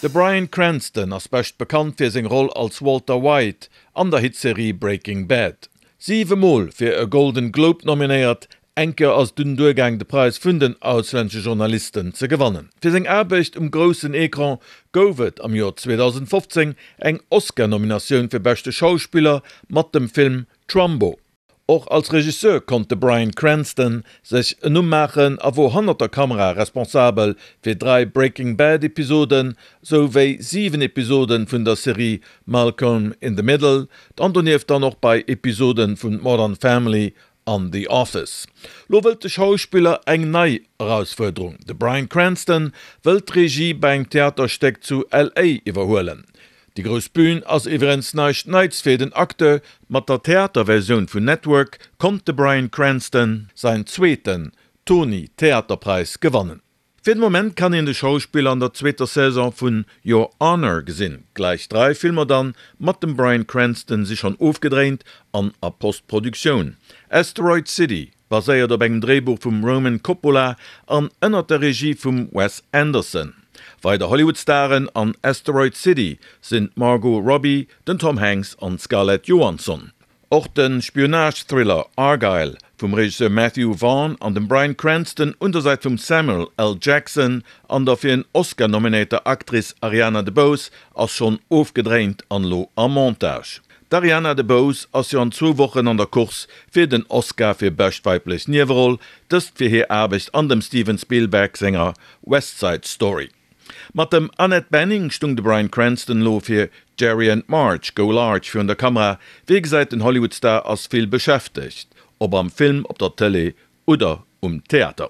De Bryan Cranston ass bescht bekannt fir seng Roll als Walter White an der Hitserie Breaking Bad. Siwe Mol fir e Golden Globe nominéiert, eng Kéier ass et dunn duergaang de Präis vun den auslännesche Journalisten ze gewannen. Fir seng Aarbecht um groussen Ecran gouf et am Joer 2015 eng Oscar-Nominatioun fir beschte Schauspiller mat dem Film Trumbo. Och als Regisseur konnt de Bryan Cranston sech en Numm maachen a wor hannert der Kamera responsabel fir 3 Breaking Bad Episoden, sou wéi 7 Episoden vun der Serie Malcolm in the Middle, an donieft dann och bei Episoden vun Modern Family an The Office. Lo wëllt de Schauspiller eng nei Erausfuerderung, De Bryan Cranston wëllt d'Regie bei engem Theaterstéck zu LA iwwerhuelen. Déi grouss Bühn ass iwwerens näischt Neits fir den Acteur. Mat der Theaterversioun vun Network konnt de Bryan Cranston säin zweeten Tony-Theaterpräis gewannen. Fir de Moment kann een de Schauspiller an der zweeter Saison vun Your Honor gesinn. Gläich 3 Filmer dann mat dem Bryan Cranston si schonn ofgedréint an a Postproduktioun. Asteroid City Baséiert op engem Dréibuch vum Roman Coppola an ënnert der Regie vum Wes Anderson. Weider Hollywood-Staren an Asteroid City sinn d'Margot Robbie, den Tom Hanks an d'Scarlett Johansson. Och de Spionage-Thriller Argylle vum Regisseur Matthew Vaughn an dem Bryan Cranston un der Säit vum Samuel L. Jackson an der fir en Oscar nominéierter Actrice Ariana DeBose ass schonn ofgedréint an elo am Montage. D'Ariana DeBose ass jo an zwou Wochen an der Course fir den Oscar fir bescht weiblech Nieweroll, dëst fir hir Aarbecht an dem Steven Spielberg senger West Side Story. Mat dem Annette Bening stung de Bryan Cranston elo fir Jerry and Marge Go Large virun der Kamera. Wéi gesäit, den Hollywood-Star ass vill beschäftegt, ob am Film, op der Tëlee oder um Theater.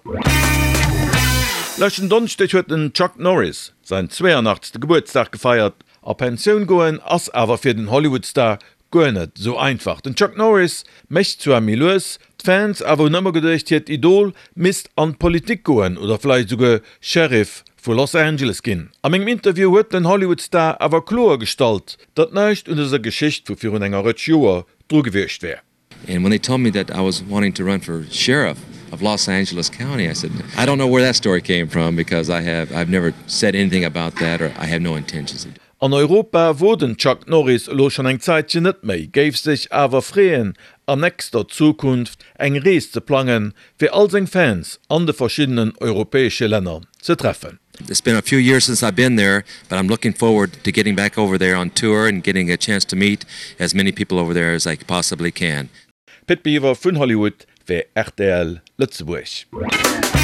Leschten Donneschdeg huet den Chuck Norris säin 82. Gebuertsdag gefeiert. A Pensioun goen ass awer fir den Hollywood-Star guer net esou einfach. Den Chuck Norris mécht zwar méi lues, d'Fans awer hunn ëmmer geduecht hiert Idol misst an d'Politik goen oder vläicht esouguer Sheriff vu Los Angeles ginn. A mengem Interview huet den Hollywood-Star awer kloer gestallt, datt näischt un dëser Geschicht vu virun enger Rëtsch Joer dru gewiescht wär. And when they told me that I was wanting to run for sheriff of Los Angeles County, I said, I don't know where that story came from because I have I've never said anything about that or I have no intentions of An Europa wor den Chuck Norris elo schonn eng Zäitchen net méi, géif sech awer freeën an nächster Zukunft eng Rees ze plangen, fir all seng Fans an de verschiddenen europäesche Länner ze treffen. It's been a few years since I've been there, but I'm looking forward to getting back over there on tour and getting a chance to meet as many people over there as I possibly can. Pit Biwer vun Hollywood fir rtl Lëtzebuerg.